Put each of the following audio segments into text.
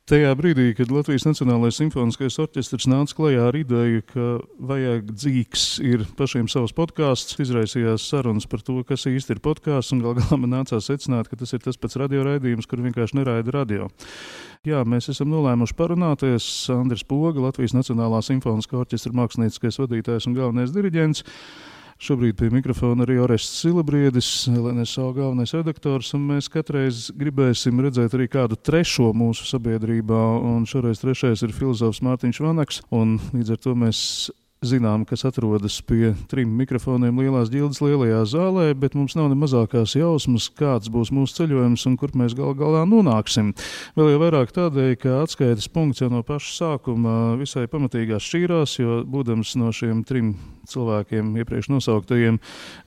Tajā brīdī, kad Latvijas Nacionālais simfoniskais orķestrs nāca klajā ar ideju, ka vajag dzīgs ir pašiem savs podkāsts, izraisījās sarunas par to, kas īsti ir podkāsts, un gal galā man nācās secināt, ka tas ir tas pats radioraidījums, kur vienkārši neraida radio. Jā, mēs esam nolēmuši parunāties. Andris Poga, Latvijas Nacionālā simfoniskā orķestra mākslinieckais vadītājs un galvenais diriģents. Šobrīd pie mikrofona arī Orests Silabriedis, LNSO galvenais redaktors, un mēs katreiz gribēsim redzēt arī kādu trešo mūsu sabiedrībā, un šoreiz trešais ir filozofs Mārtiņš Vanaks, un līdz ar to mēs zinām, kas atrodas pie 3 mikrofoniem Lielās ģildes lielajā zālē, bet mums nav ne mazākās jausmas, kāds būs mūsu ceļojums un kur mēs galā nonāksim. Vēl jau vairāk tādēļ, ka atskaites punkts jau no paša sākuma visai pamatīgās šķīrās, jo būdams no šiem 3 cilvēkiem iepriekš nosauktajiem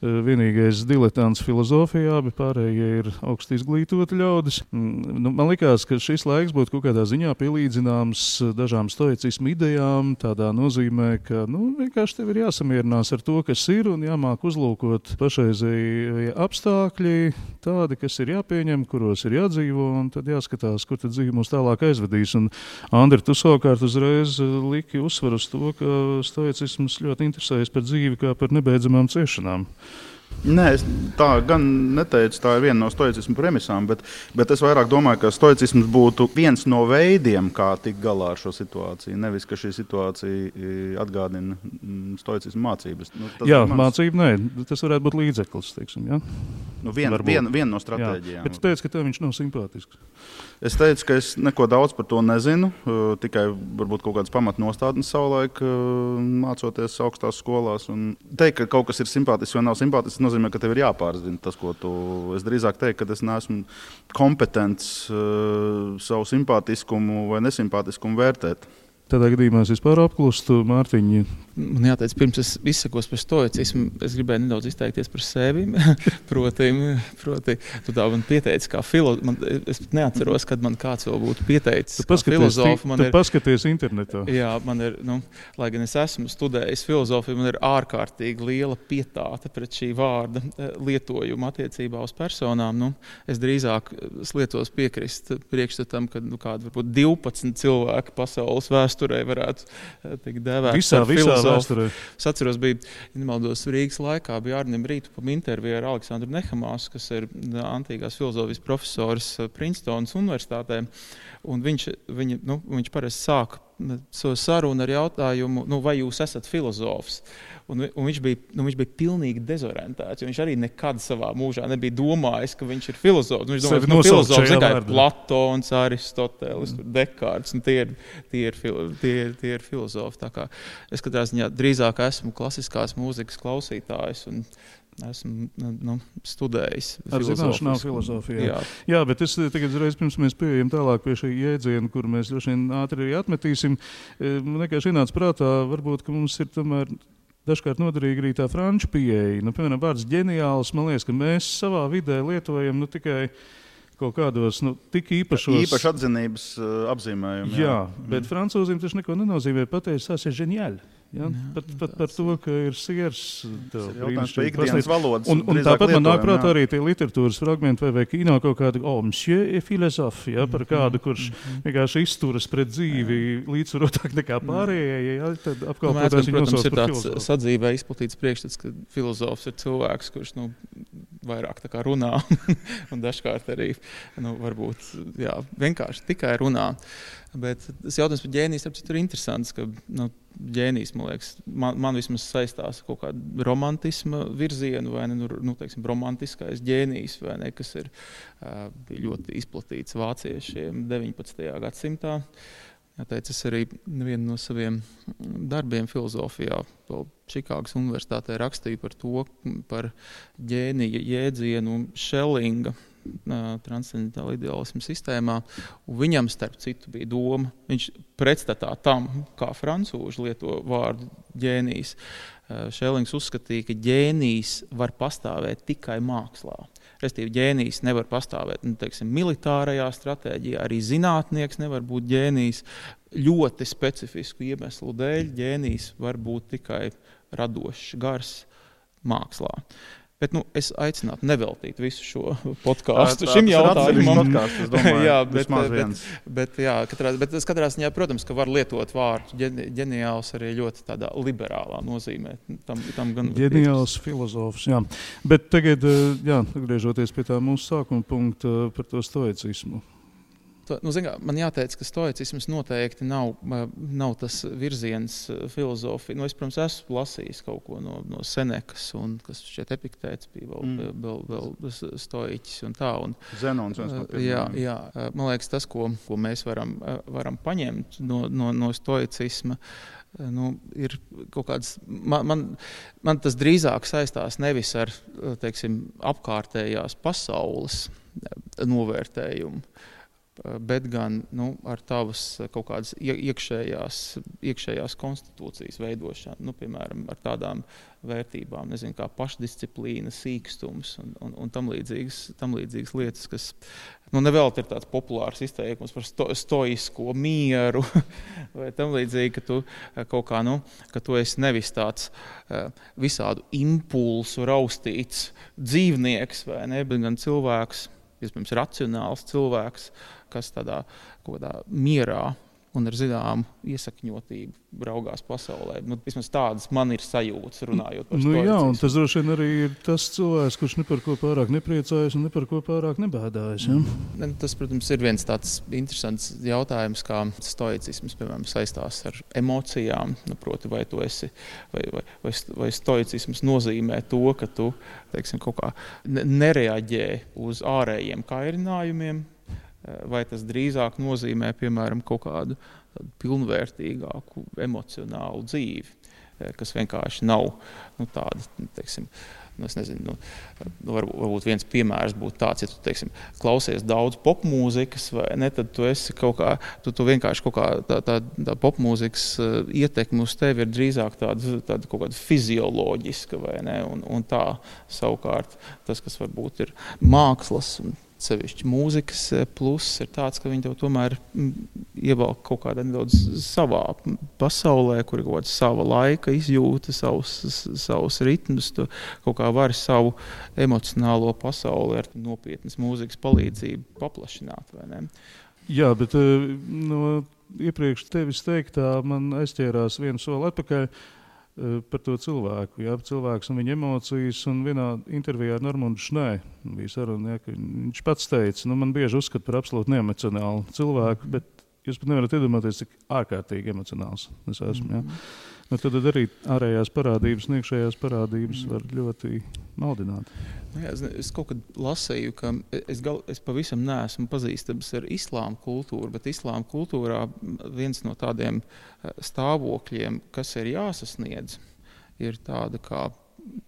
vienīgais diletants filozofijā, bet pārējie ir augsti izglītoti ļaudis. Man likās, ka šis laiks būtu kaut kādā ziņā pielīdzināms dažām stoicismu idejām, tādā nozīmē, ka vienkārši tev ir jāsamierinās ar to, kas ir, un jāmāk uzlūkot pašreizēji apstākļi, tādi, kas ir jāpieņem, kuros ir jādzīvo, un tad jāskatās, kur tad dzīve mūs tālāk aizvedīs. Un, Andri, tu savukārt uzreiz liki uzsvaru uz to, ka stoicisms ļoti interesējas par dzīvi kā par nebeidzamām ciešanām. Nē, es tā gan neteicu, tā ir viena no stoicismu premisām, bet es vairāk domāju, ka stoicisms būtu viens no veidiem, kā tikt galā ar šo situāciju. Nevis, ka šī situācija atgādina stoicismu mācības. Jā, mācība nē, tas varētu būt līdzeklis, teiksim, jā? Viena no stratēģijām. Bet tu teici, ka tev viņš nav simpātisks. Es teicu, ka es neko daudz par to nezinu, tikai varbūt kaut kādas pamatnostādnes savulaik mācoties augstās skolās. Un teikt, ka kaut kas ir simpātisks vai nav simpātisks, nozīmē, ka tev ir jāpārzina tas, ko tu... Es drīzāk teiktu, ka es neesmu kompetents savu simpātiskumu vai nesimpātiskumu vērtēt. Tādā gadījumā es vispār apklustu, Mārtiņu. Man jāteic, pirms es izsakos par stoicismu, es gribēju nedaudz izteikties par sevi. proti, tu tā man pieteici kā filozofs. Es neatceros, kad man kāds vēl būtu pieteicis kā filozofu. Tu paskaties internetā. Jā, man ir, lai gan es esmu studējis filozofiju, man ir ārkārtīgi liela pietāte pret šī vārda lietojumu attiecībā uz personām. Es drīzāk lietos piekrist priekšstatam, ka kādi varbūt 12 cilvēki pasaules vēsturē varētu tikt dēvēt par filozofu. Es atceros, bija, nemaldos, Rīgas laikā bija Arnim Rītupam intervija ar Aleksandru Nehamāsu, kas ir antīkās filozofijas profesors Princetonas universitātē, un viņš parasti sāk savu sarunu ar jautājumu, vai jūs esat filozofs? Un viņš bija pilnīgi dezorientēts, jo viņš arī nekad savā mūžā nebija domājis, ka viņš ir filozofs. Viņš domāja, ka filozofs ir Platons, Aristotelis, Dekārts, un tie ir filozofi. Tā kā es katrā ziņā drīzāk esmu klasiskās mūzikas klausītājs un esmu studējis ar zināšanām filozofijā. Jā, bet es tagad reiz pirms mēs pieejam tālāk pie šī jēdziena, kur mēs droši vien ātri arī atmetīsim. Man vienkārši ienāca prātā, varbūt, ka mums ir tomēr dažkārt noderīgi arī tā franču pieeja. Piemēram, vārds ģeniāls, man liekas, ka mēs savā vidē lietojam tikai kaut kādos tik īpašos... Īpaši atzinības apzīmējumi. Jā, bet francūzim taču neko nenozīmē pateikt, tas ir ģeniāli. Ja? Pat par to, ka ir siers. Un tāpat man nāk prātā arī tie literatūras fragmenti vai kino kaut kādi, monsieur et philosophe, ja? Par kādu, kurš vienkārši izturas pret dzīvi līdzsvarotāk nekā pārējie, ja? Tad apkalpotās viņu nosauc par filozofu. Protams, ir sadzīvē izplatīts priekšstats, ka filozofs ir cilvēks, kurš vairāk tā kā runā un dažkārt arī varbūt vienkārši tikai runā. Bet tas jautājums par ģēnijas ir interesants, ka ģēnijas, man liekas, man vismaz saistās kaut kādu romantisma virzienu vai teiksim, romantiskais ģēnijs, vai ne, kas ir ļoti izplatīts vāciešiem 19. gadsimtā. Jāteic, es arī vienu no saviem darbiem filozofijā vēl Čikāgas universitātē rakstīju par ģēnija jēdzienu Šellinga transcendentāla ideālisma sistēmā, un viņam starp citu bija doma, viņš pretstatā tam, kā francūži lieto vārdu ģēnijs. Šellings uzskatīja, ka ģēnijs var pastāvēt tikai mākslā. Restīvi, ģēnijs nevar pastāvēt, teiksim, militārajā stratēģijā, arī zinātnieks nevar būt ģēnijs. Ļoti specifisku iemeslu dēļ ģēnijs var būt tikai radošs, gars mākslā. Bet es aicinātu neveltīt visu šo podkāstu šim jautājumam. Es domāju, jā, bet katrā ziņā, protams, ka var lietot vārdu ģeniāls arī ļoti tādā liberālā nozīmē. Tam gan ģeniāls filozofs, jā. Bet tagad, atgriežoties pie tā mūsu sākuma punkta par to stoicismu. Man jāteic, ka stoicisms noteikti nav tas virziens filozofija. Es, protams, esmu lasījis kaut ko no Senekas, un kas šķiet Epiktēts bija vēl stoiķis un tā. Zenons. Jā, man liekas, tas, ko mēs varam paņemt no stoicisma, ir kaut kāds, man tas drīzāk saistās nevis ar, teiksim, apkārtējās pasaules novērtējumu, bet gan ar tavas kaut kādas iekšējās konstitūcijas veidošanu, piemēram, ar tādām vērtībām, kā pašdisciplīna, sīkstums un tam līdzīgas lietas, kas nevēl ir tāds populārs izteikums par stoisko mieru vai tam līdzīgi, ka tu kaut kā, ka tu esi nevis tāds visādu impulsu raustīts dzīvnieks vai ne, bet gan cilvēks, iespējams, racionāls cilvēks, kas tādā mierā un ar zināmu iesakņotību raugās pasaulē. Vismaz tādas man ir sajūtas, runājot par stoicismu. Jā, un tas droši vien arī ir tas cilvēks, kurš ne par ko pārāk nepriecājas un ne par ko pārāk nebēdājas. Ja? Tas, protams, ir viens tāds interesants jautājums, kā stoicisms, piemēram, saistās ar emocijām. Proti, vai tu esi, vai stoicisms nozīmē to, ka tu, teiksim, kaut kā nereaģē uz ārējiem kairinājumiem, vai tas drīzāk nozīmē, piemēram, kaut kādu pilnvērtīgāku emocionālu dzīvi, kas vienkārši nav tāda, teiksim, es nezinu, varbūt viens piemērs būtu tāds, ja tu, teiksim, klausies daudz popmūzikas, vai ne, tad tu esi kaut kā, tu vienkārši kaut kā tā popmūzikas ietekme uz tevi ir drīzāk tāda kaut kāda fizioloģiska, vai ne, un tā savukārt tas, kas varbūt ir mākslas un sevišķi mūzikas pluss ir tāds, ka viņi tev tomēr ievelk kaut kādā nedaudz savā pasaulē, kur ir kaut kāda sava laika izjūta, savus ritmus, tu kaut kā vari savu emocionālo pasauli ar nopietnas mūzikas palīdzību paplašināt, vai ne? Jā, bet no iepriekš tevis teiktā man aizķērās vienu soli atpakaļ par to cilvēku, cilvēks un viņa emocijas, un vienā intervijā ar Normundu Šnē bija saruna, ka viņš pats teica, man bieži uzskata par absolūti neemocionālu cilvēku, bet jūs pat nevarat iedomāties, cik ārkārtīgi emocionāls es esmu. Tad arī ārējās parādības un iekšējās parādības var ļoti maldināt. Es kaut kad lasīju, ka es pavisam neesmu pazīstams ar islāma kultūru, bet islāma kultūrā viens no tādiem stāvokļiem, kas ir jāsasniedz, ir tāda kā,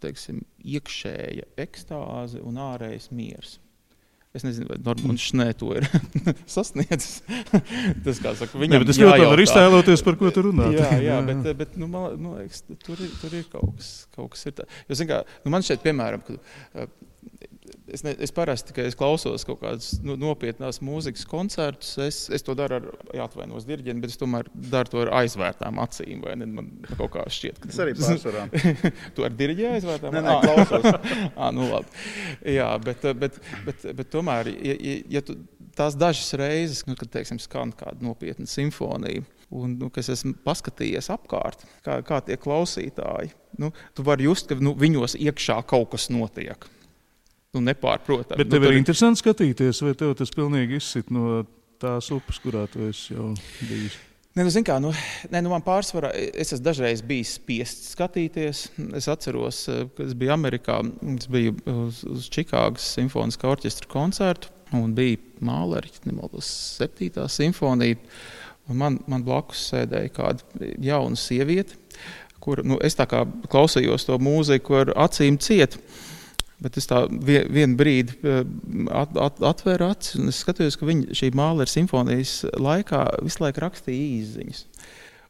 teiksim, iekšēja ekstāze un ārējais miers. Es nezinu, vai Normunds Šnē to ir sasniedzis. Tas, kā saka, viņam jājautā. Es ļoti var iztēloties, par ko tu runā. Jā, bet man liekas, tur ir kaut kas ir tā. Jo, zin kā, man šeit, piemēram, es parasti, ka es klausos kaut kādas nopietnās mūzikas koncertus, es to daru ar, jāatvainos diriģenti, bet es tomēr daru to ar aizvērtām acīm, vai ne? Man kaut kā šķiet, ka... Es arī pārsvarā. Tu ar diriģi aizvērtām? Nē, klausos. Labi. Jā, bet tomēr, ja tu tās dažas reizes, kad, teiksim, skan kāda nopietna simfonija, un, kas esmu paskatījies apkārt, kā tie klausītāji, tu vari just, ka viņos iekšā kaut kas notiek. Nepārprotam. Bet tev ir interesanti skatīties, vai tev tas pilnīgi izsit no tās upes, kurā tu esi jau bijis? Man pārsvarā, es esmu dažreiz bijis spiests skatīties. Es atceros, kad es biju Amerikā, es biju uz Čikāgas simfoniskā orķestra koncertu, un bija Mahleri, 7. simfonija, un man blakus sēdēja kāda jauna sieviete, kur, es tā kā klausījos to mūziku ar acīm ciet. Bet es tā vienu brīdi atvēru acis, un es skatījos, ka viņa šī Mahleri simfonijas laikā visu laiku rakstīja īsziņas.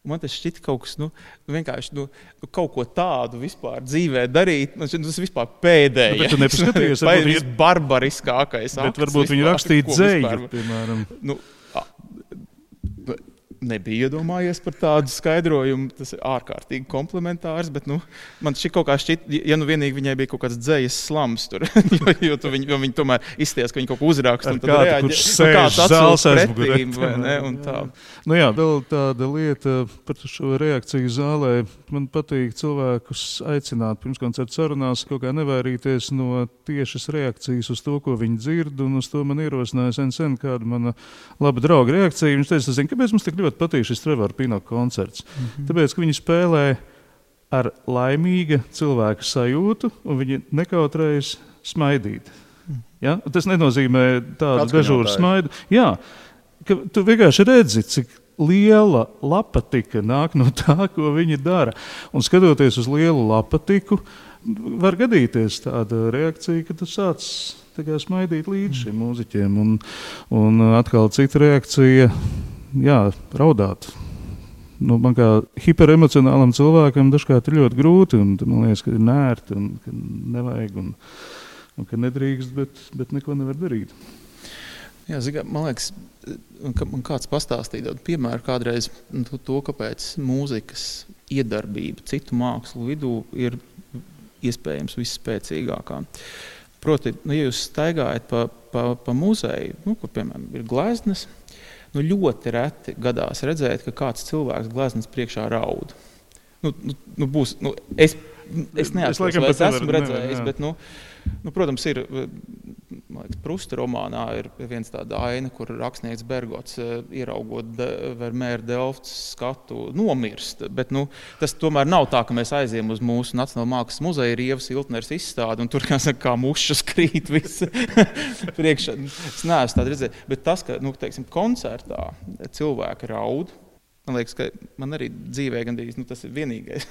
Un man tas šķita kaut kas, vienkārši kaut ko tādu vispār dzīvē darīt, man šķita, tas vispār pēdējais. Bet tu nepaskatījies, varbūt barbariskākais akts. Bet varbūt viņi rakstīja dzēju, piemēram. nebija iedomājies par tādu skaidrojumu. Tas ir ārkārtīgi komplementārs, bet man šī kaut kā šķiet, ja vienīgi viņai bija kaut kāds dzejas slams tur, jo viņi tomēr izties, ka viņi kaut ko uzraksta. Un tad reaģē, kāds atsols pretīm, vai ne, un tā. Nu jā, vēl tāda lieta par šo reakciju zālē. Man patīk cilvēkus aicināt pirms koncerta sarunās kaut kā nevairīties no tiešas reakcijas uz to, ko viņi dzird, un uz to man ierosināja sen kāda mana laba drauga reakcija. Viņš teica, zini, kāpēc mums tik ļoti patīk šis Trevora Pinnock koncerts? Tāpēc, ka viņi spēlē ar laimīga cilvēka sajūtu, un viņi nekautrējas smaidīt. Ja? Tas nenozīmē tādu dežūru smaidu. Jā, ka tu vienkārši redzi, cik liela lapatiga nāk no tā, ko viņi dara. Un skatoties uz lielu lapatiku, var gadīties tāda reakcija, ka tu sāc smaidīt līdz šiem mūziķiem. Un atkal cita reakcija, jā, raudāt. Man kā hiperemocionālam cilvēkam dažkārt ir ļoti grūti, un man liekas, ka ir nērti, un ka nevajag, un ka nedrīkst, bet neko nevar darīt. Jā, man liekas, man kāds pastāstīja piemēru kādreiz to, kāpēc mūzikas iedarbība citu mākslu vidū ir iespējams visspēcīgākā. Proti, ja jūs staigājat pa muzeju, kur, piemēram, ir gleznas, ļoti reti gadās redzēt, ka kāds cilvēks gleznas priekšā raud. Es neatceros, vai es esmu redzējis, bet, protams, ir, man liekas, Prusta romānā ir viens tāda aina, kur rakstnieks Bergots, ieraugot Vermeer Delfts skatu, nomirst. Bet, tas tomēr nav tā, ka mēs aiziem uz mūsu Nacionālā mākslas muzeja, ir Ievas Iltners izstāde, un tur, kā mušas krīt visi priekšā. Es neesmu tādu redzējis. Bet tas, ka, teiksim, koncertā cilvēki raud, man liekas, ka man arī dzīvē gandrīz, tas ir vienīgais.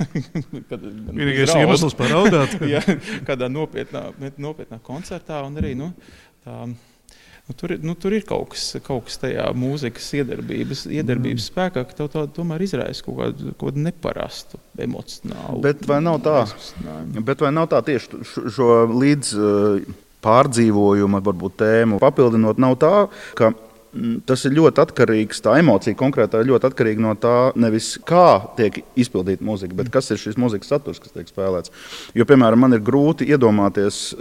Vienīgais iemesls paraudāt. Jā, kādā nopietnā koncertā, un arī, tur ir kaut kas tajā mūzikas iedarbības spēkā, ka tev tomēr izraisa kaut kādu neparastu emocionālu. Bet vai nav tā tieši šo līdz pārdzīvojumu, varbūt tēmu papildinot, nav tā, ka tas ir ļoti atkarīgs, tā emocija konkrētā ir ļoti atkarīga no tā, nevis kā tiek izpildīta mūzika, bet kas ir šis mūzikas saturs, kas tiek spēlēts. Jo, piemēram, man ir grūti iedomāties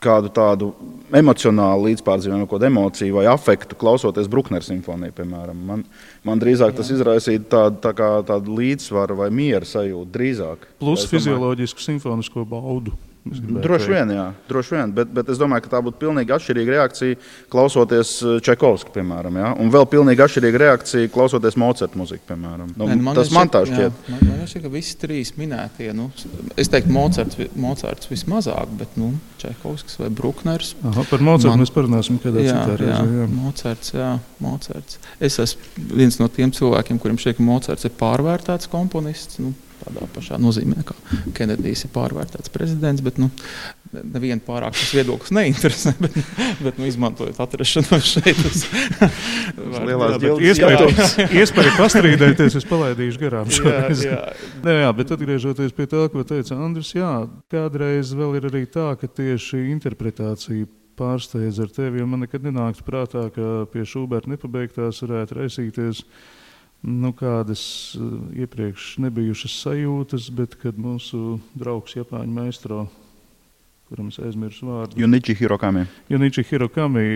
kādu tādu emocionālu līdzpārdzīvojumu, kādu emociju vai afektu, klausoties Bruckner simfoniju, piemēram. Man drīzāk tas izraisīja tādu līdzsvaru vai miera sajūtu drīzāk. Plus fizioloģisku simfonisko baudu. Droši vien, bet es domāju, ka tā būtu pilnīgi atšķirīga reakcija klausoties Čaikovska, piemēram, ja? Un vēl pilnīgi atšķirīga reakcija klausoties Mocarta muziku, piemēram. Tas man tā šķiet. Man šķiet, ka visi trīs minētie, es teiktu Mocarts vismazāk, bet Čaikovskis vai Bruckners. Par Mocartu mēs parunāsim kādā citā reizē. Mocarts. Es esmu viens no tiem cilvēkiem, kuriem šķiet, ka Mocarts ir pārvērtēts komponists, tādā pašā nozīmē, kā Kenedijs ir pārvērtēts prezidents, bet nevienu pārāk tas viedoklis neinteresē, bet izmantojot atrašanos šeit. Iespēja pastrīdēties, es palaidīšu garām šoreiz. Jā, bet atgriežoties pie tā, ko teica Andris, kādreiz vēl ir arī tā, ka tieši interpretācija pārsteidz ar tevi, jo man nekad nenāktu prātā, ka pie Šuberta nepabeigtās varētu raisīties kādas iepriekš nebijušas sajūtas, bet kad mūsu draugs Japāņu maestro, kuram es aizmirsu vārdu, Junichi Hirokami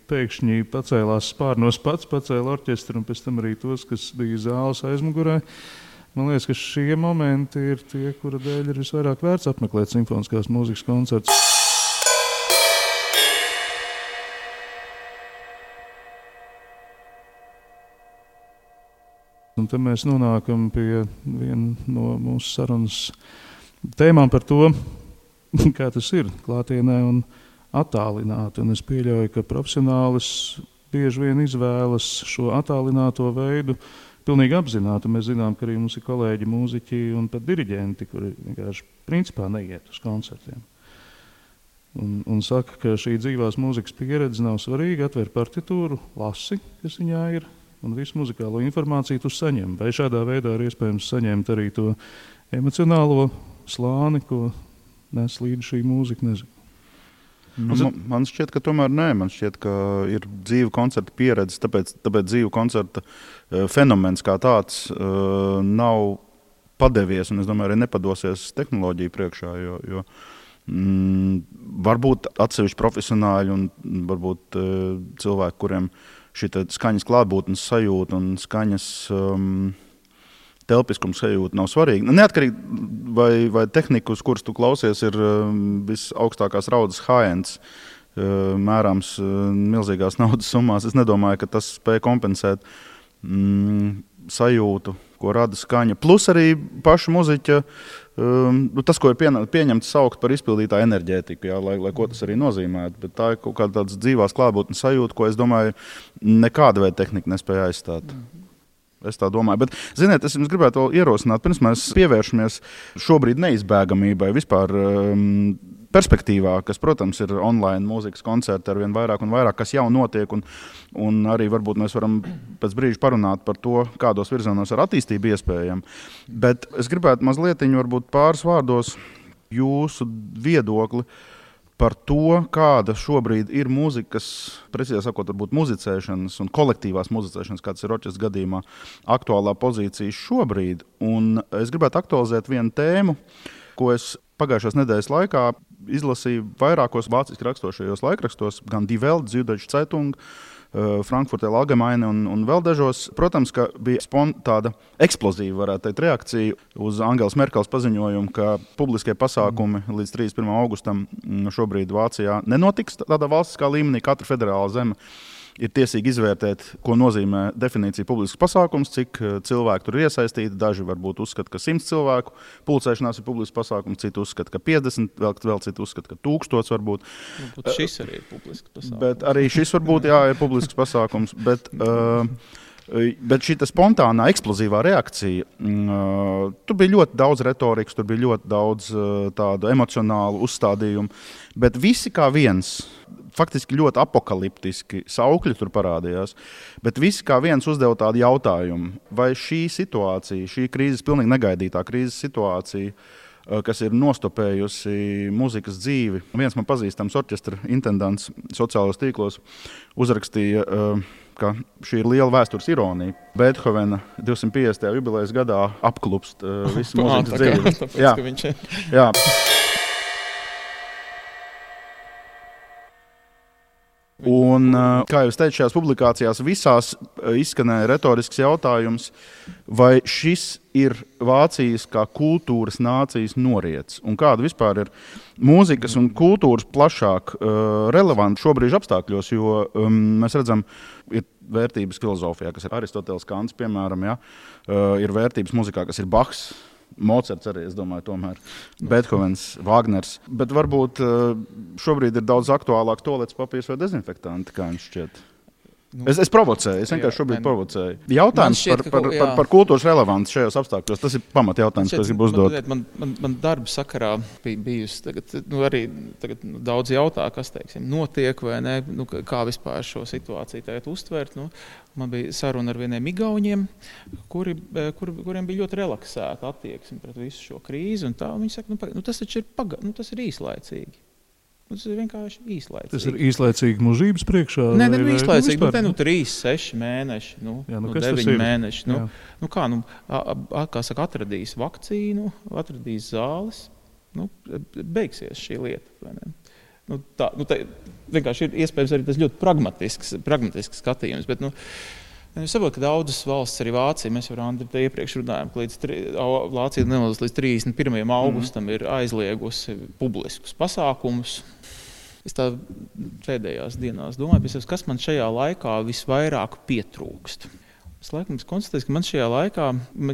pēkšņi pacēlās spārnos pats, pacēla orķestru un pēc tam arī tos, kas bija zāles aizmugurē. Man liekas, ka šie momenti ir tie, kura dēļ ir visvairāk vērts apmeklēt simfoniskās mūzikas koncertus. Un tad mēs nonākam pie viena no mūsu sarunas tēmām par to, kā tas ir klātienē un attālināti. Un es pieļauju, ka profesionālis bieži vien izvēlas šo attālināto veidu pilnīgi apzināti. Mēs zinām, ka arī mums ir kolēģi mūziķi un pat diriģenti, kuri vienkārši principā neiet uz koncertiem. Un saka, ka šī dzīvās mūzikas pieredze nav svarīga, atver partitūru, lasi, kas viņā ir, un visu muzikālo informāciju tu saņem. Vai šādā veidā ir iespējams saņemt arī to emocionālo slāni, ko nes līdz šī mūzika, nezinu. Man šķiet, ka tomēr nē. Man šķiet, ka ir dzīva koncerta pieredze, tāpēc dzīva koncerta fenomens kā tāds nav padevies, un es domāju, arī nepadosies tehnoloģiju priekšā, jo varbūt atsevišķi profesionāļi un varbūt cilvēki, kuriem šī skaņas klātbūtnes sajūta un skaņas telpiskums sajūta nav svarīga. Neatkarīgi vai tehnika, uz kuras tu klausies, ir visaugstākās raudzes high-ends, mērāms milzīgās naudas summās. Es nedomāju, ka tas spēj kompensēt sajūtu, ko rada skaņa. Plus arī paša muziķa, tas, ko ir pieņemts saukt par izpildītā enerģētiku, jā, lai ko tas arī nozīmētu. Bet tā ir kaut kāda tāds dzīvās klātbūtnes sajūta, ko es domāju, nekāda veida tehnika nespēja aizstāt. Es tā domāju. Bet, ziniet, es jums gribētu vēl ierosināt, pirms mēs pievēršamies šobrīd neizbēgamībai vispār perspektīvā, kas, protams, ir online mūzikas koncerti arvien vairāk un vairāk, kas jau notiek, un arī varbūt mēs varam pēc brīža parunāt par to, kādos virzienos ar attīstību iespējami. Bet es gribētu mazlietiņu, varbūt pāris vārdos jūsu viedokli par to, kāda šobrīd ir mūzikas, precīzāk sakot, varbūt muzicēšanas un kolektīvās muzicēšanas, kāds ir orķestra gadījumā, aktuālā pozīcija šobrīd. Un es gribētu aktualizēt vienu tēmu, ko es pagājušās nedēļas laikā izlasīju vairākos vāciski rakstošajos laikrakstos, gan Die Welt, Süddeutsche Zeitung, Frankfurter Allgemeine un vēl dažos. Protams, ka bija tāda eksplozīva, varētu teikt, reakcija uz Angelas Merkels paziņojumu, ka publiskie pasākumi līdz 31. augustam šobrīd Vācijā nenotiks tādā valstiskā līmenī. Katra federāla zeme ir tiesīgi izvērtēt, ko nozīmē definīcija publisks pasākums, cik cilvēki tur ir iesaistīti. Daži varbūt uzskata, ka 100 cilvēku pulcēšanās ir publisks pasākums, citi uzskata, ka 50, vēl citi uzskata, ka 1000 varbūt. Šis arī ir publisks pasākums. Bet arī šis varbūt, jā, ir publisks pasākums. Bet šī spontānā, eksplozīvā reakcija, tur bija ļoti daudz retorikas, tur bija ļoti daudz tādu emocionālu uzstādījumu, bet visi kā viens, faktiski ļoti apokaliptiski saukļi tur parādījās, bet visi kā viens uzdeva tādu jautājumu, vai šī situācija, šī krīzes, pilnīgi negaidītā krīzes situācija, kas ir nostopējusi mūzikas dzīvi. Viens man pazīstams orķestra intendants sociālos tīklos uzrakstīja, ka šī ir liela vēstures ironija. Beethovena 250. jubilejas gadā apklupst visu mūzikas dzīvi. Tāpēc, jā. Un, kā jau es teicu, šajās publikācijās visās izskanēja retorisks jautājums, vai šis ir Vācijas kā kultūras nācijas noriets, un kāda vispār ir mūzikas un kultūras plašāk relevanti šobrīd apstākļos, jo mēs redzam, ir vērtības filozofijā, kas ir Aristoteles, Kants, piemēram, ja? Ir vērtības muzikā, kas ir Bachs, Mocarts arī, es domāju, tomēr, Beethovens, Wagners, bet varbūt šobrīd ir daudz aktuālāk toaletes papīrs vai dezinfektanti, kā jums šķiet. Es provocēju, es vienkārši šobrīd provocēju. Jautājums par kultūras relevanci šajos apstākļos, tas ir pamat jautājums, ko es gribu uzdot. Man darba sakarā bijusi tagad daudz jautā, kas, teiksim, notiek vai ne, kā vispār šo situāciju tagad uztvert. Man bija saruna ar vieniem igauņiem, kuriem bija ļoti relaksēta attieksme pret visu šo krīzi, un tā viņi saka, tas taču ir tas ir īslaicīgi. Tas ir vienkārši īslaicīgi. Tas ir īslaicīgi mūžības priekšā? Nē, īslaicīgi. Tur 3, 6 mēneši, 9 mēneši. Kā saka, atradīs vakcīnu, atradīs zāles, beigsies šī lieta. Vai ne? Tā vienkārši ir iespējams arī tas ļoti pragmatisks skatījums. Bet, es saprotu, ka daudzas valsts, arī Vācija, mēs jau Andri te iepriekš runājam, ka Vācija līdz 31. augustam ir aizliegusi publiskus pasākumus. Es tā pēdējās dienās domāju, kas man šajā laikā visvairāk pietrūkst. Es laikam konstatēju, ka man šajā laikā,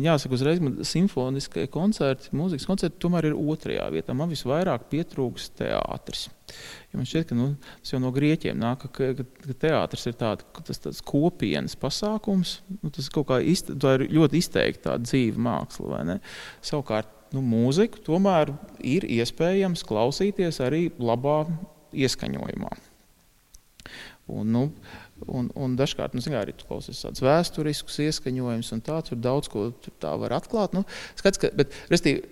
jāsaka uzreiz, simfoniskie koncerti, mūzikas koncerti tomēr ir 2. vietā. Man visvairāk pietrūkst teātris. Ja man šķiet, ka tas jau no grieķiem nāk, ka teātris ir tāds kopienas pasākums. Tas kaut kā tā ir ļoti izteikti tāda dzīva māksla, vai ne? Savukārt, mūziku tomēr ir iespējams klausīties arī labā ieskaņojumā. Un dažkārt, arī tu klausies tāds vēsturisks ieskaņojums un tur daudz ko tā var atklāt. Bet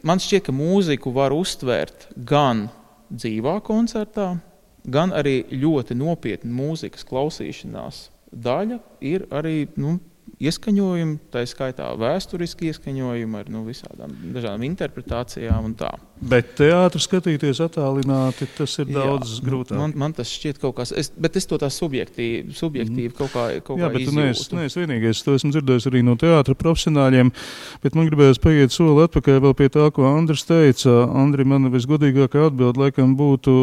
man šķiet, ka mūziku var uztvērt gan dzīvā koncertā, gan arī ļoti nopietna mūzikas klausīšanās daļa ir arī ieskaņojumi, tā skaitā vēsturiski ieskaņojumi ar visādām dažādām interpretācijām un tā. Bet teātru skatīties attālināti, tas ir daudz grūtāk. Man tas šķiet kaut kas, bet es to tā subjektīvi kaut kā izjūtu. Jā, bet tu neesi vienīgais, to esmu dzirdējis arī no teātra profesionāļiem, bet man gribējās paiet soli atpakaļ vēl pie tā, ko Andris teica. Andri, man visgodīgākā atbilde laikam būtu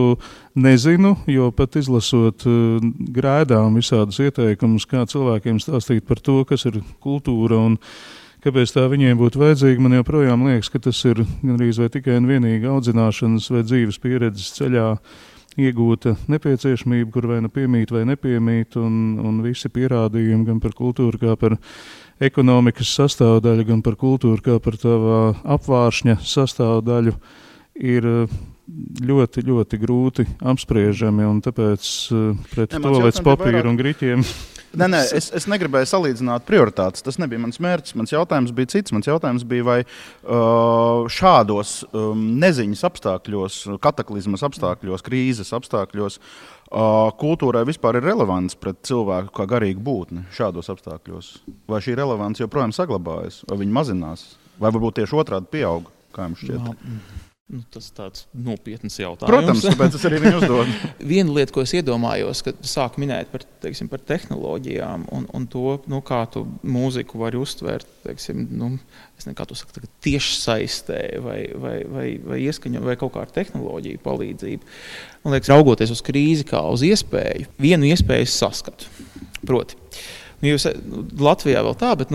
nezinu, jo pat izlasot grēdām visādus ieteikumus, kā cilvēkiem stāstīt par to, kas ir kultūra un kāpēc tā viņiem būtu vajadzīga, man joprojām liekas, ka tas ir gandrīz vai tikai un vienīgi audzināšanas vai dzīves pieredzes ceļā iegūta nepieciešamība, kur vai nu piemīt vai nepiemīt, un visi pierādījumi gan par kultūru kā par ekonomikas sastāvdaļu, gan par kultūru kā par tavā apvāršņa sastāvdaļu ir ļoti, ļoti grūti apspriežami, un tāpēc pret toalets papīru un griķiem. Nē, es negribēju salīdzināt prioritātes. Tas nebija mans mērķis. Mans jautājums bija cits. Mans jautājums bija, vai šādos neziņas apstākļos, kataklizmas apstākļos, krīzes apstākļos kultūrai vispār ir relevants pret cilvēku kā garīgu būtni šādos apstākļos? Vai šī relevance joprojām saglabājas, vai viņa mazinās, vai varbūt tieši otrādi pieaug, kā jums šķiet? Tas tāds nopietns jautājums. Protams, tāpēc es arī viņu uzdodu. Viena lieta, ko es iedomājos, kad sāk minēt par tehnoloģijām un to, kā tu mūziku vari uztvērt, es nezinu, kā tu saki, tiešsaistē vai ieskaņo, vai kaut kā ar tehnoloģiju palīdzību. Man liekas, raugoties uz krīzi kā uz iespēju, vienu iespēju saskatu. Proti, jūs Latvijā vēl tā, bet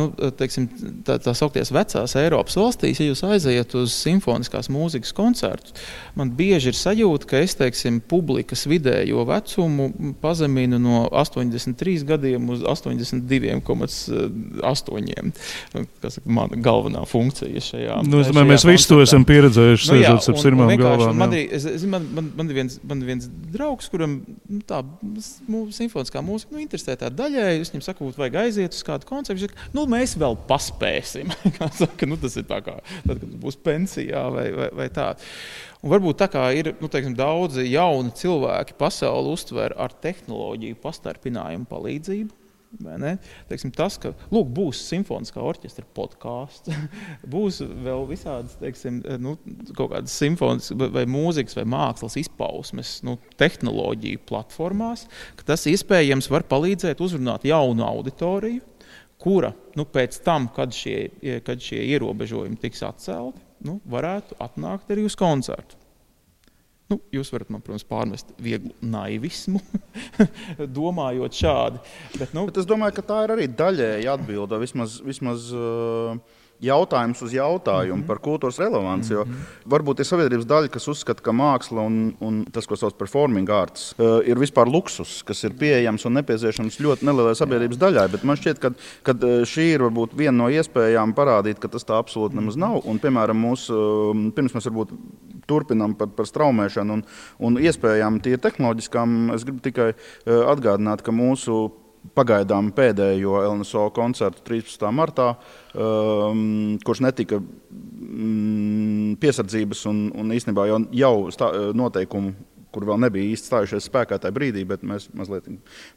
tā saukties vecās Eiropas valstīs, ja jūs aiziet uz simfoniskās mūzikas koncertus, man bieži ir sajūta, ka es, publikas vidējo vecumu pazeminu no 83 gadiem uz 82,8. Kas ir mana galvenā funkcija šajā. Es domāju, mēs visi to esam pieredzējuši, sēžot ap sirmām galvām. Man ir viens draugs, kuram tā simfoniskā mūzika interesē tā daļai, es viņam saku, vajag aiziet uz kādu koncertu, mēs vēl paspēsim. Tas ir tā kā, tad, kad būs pensijā vai tā. Un varbūt tā kā ir daudzi jauni cilvēki pasauli uztver ar tehnoloģiju pastarpinājumu palīdzību. Tas, ka būs simfoniskā orķestra podkāsts, būs vēl visādas kaut kādas simfoniskas vai mūzikas vai mākslas izpausmes tehnoloģiju platformās, ka tas iespējams var palīdzēt uzrunāt jaunu auditoriju, kura pēc tam, kad šie ierobežojumi tiks atcelti, varētu atnākt arī uz koncertu. Jūs varat man, protams, pārmest vieglu naivismu, domājot šādi. Bet es domāju, ka tā ir arī daļēji atbilde, vismaz jautājums uz jautājumu par kultūras relevanci. Jo varbūt ir sabiedrības daļa, kas uzskata, ka māksla un tas, ko sauc performing arts, ir vispār luksus, kas ir pieejams un nepieciešams ļoti nelielai sabiedrības daļai. Bet man šķiet, ka šī ir varbūt viena no iespējām parādīt, ka tas tā absolūti nemaz nav. Un, piemēram, pirms mēs varbūt turpinām par straumēšanu un iespējām tīri tehnoloģiskām, es gribu tikai atgādināt, ka mūsu pagaidām pēdējo LNSO koncertu 13. martā, kurš netika piesardzības un īstenībā jau noteikumu, kur vēl nebija īsti stājušies spēkā tajā brīdī, bet mēs mazliet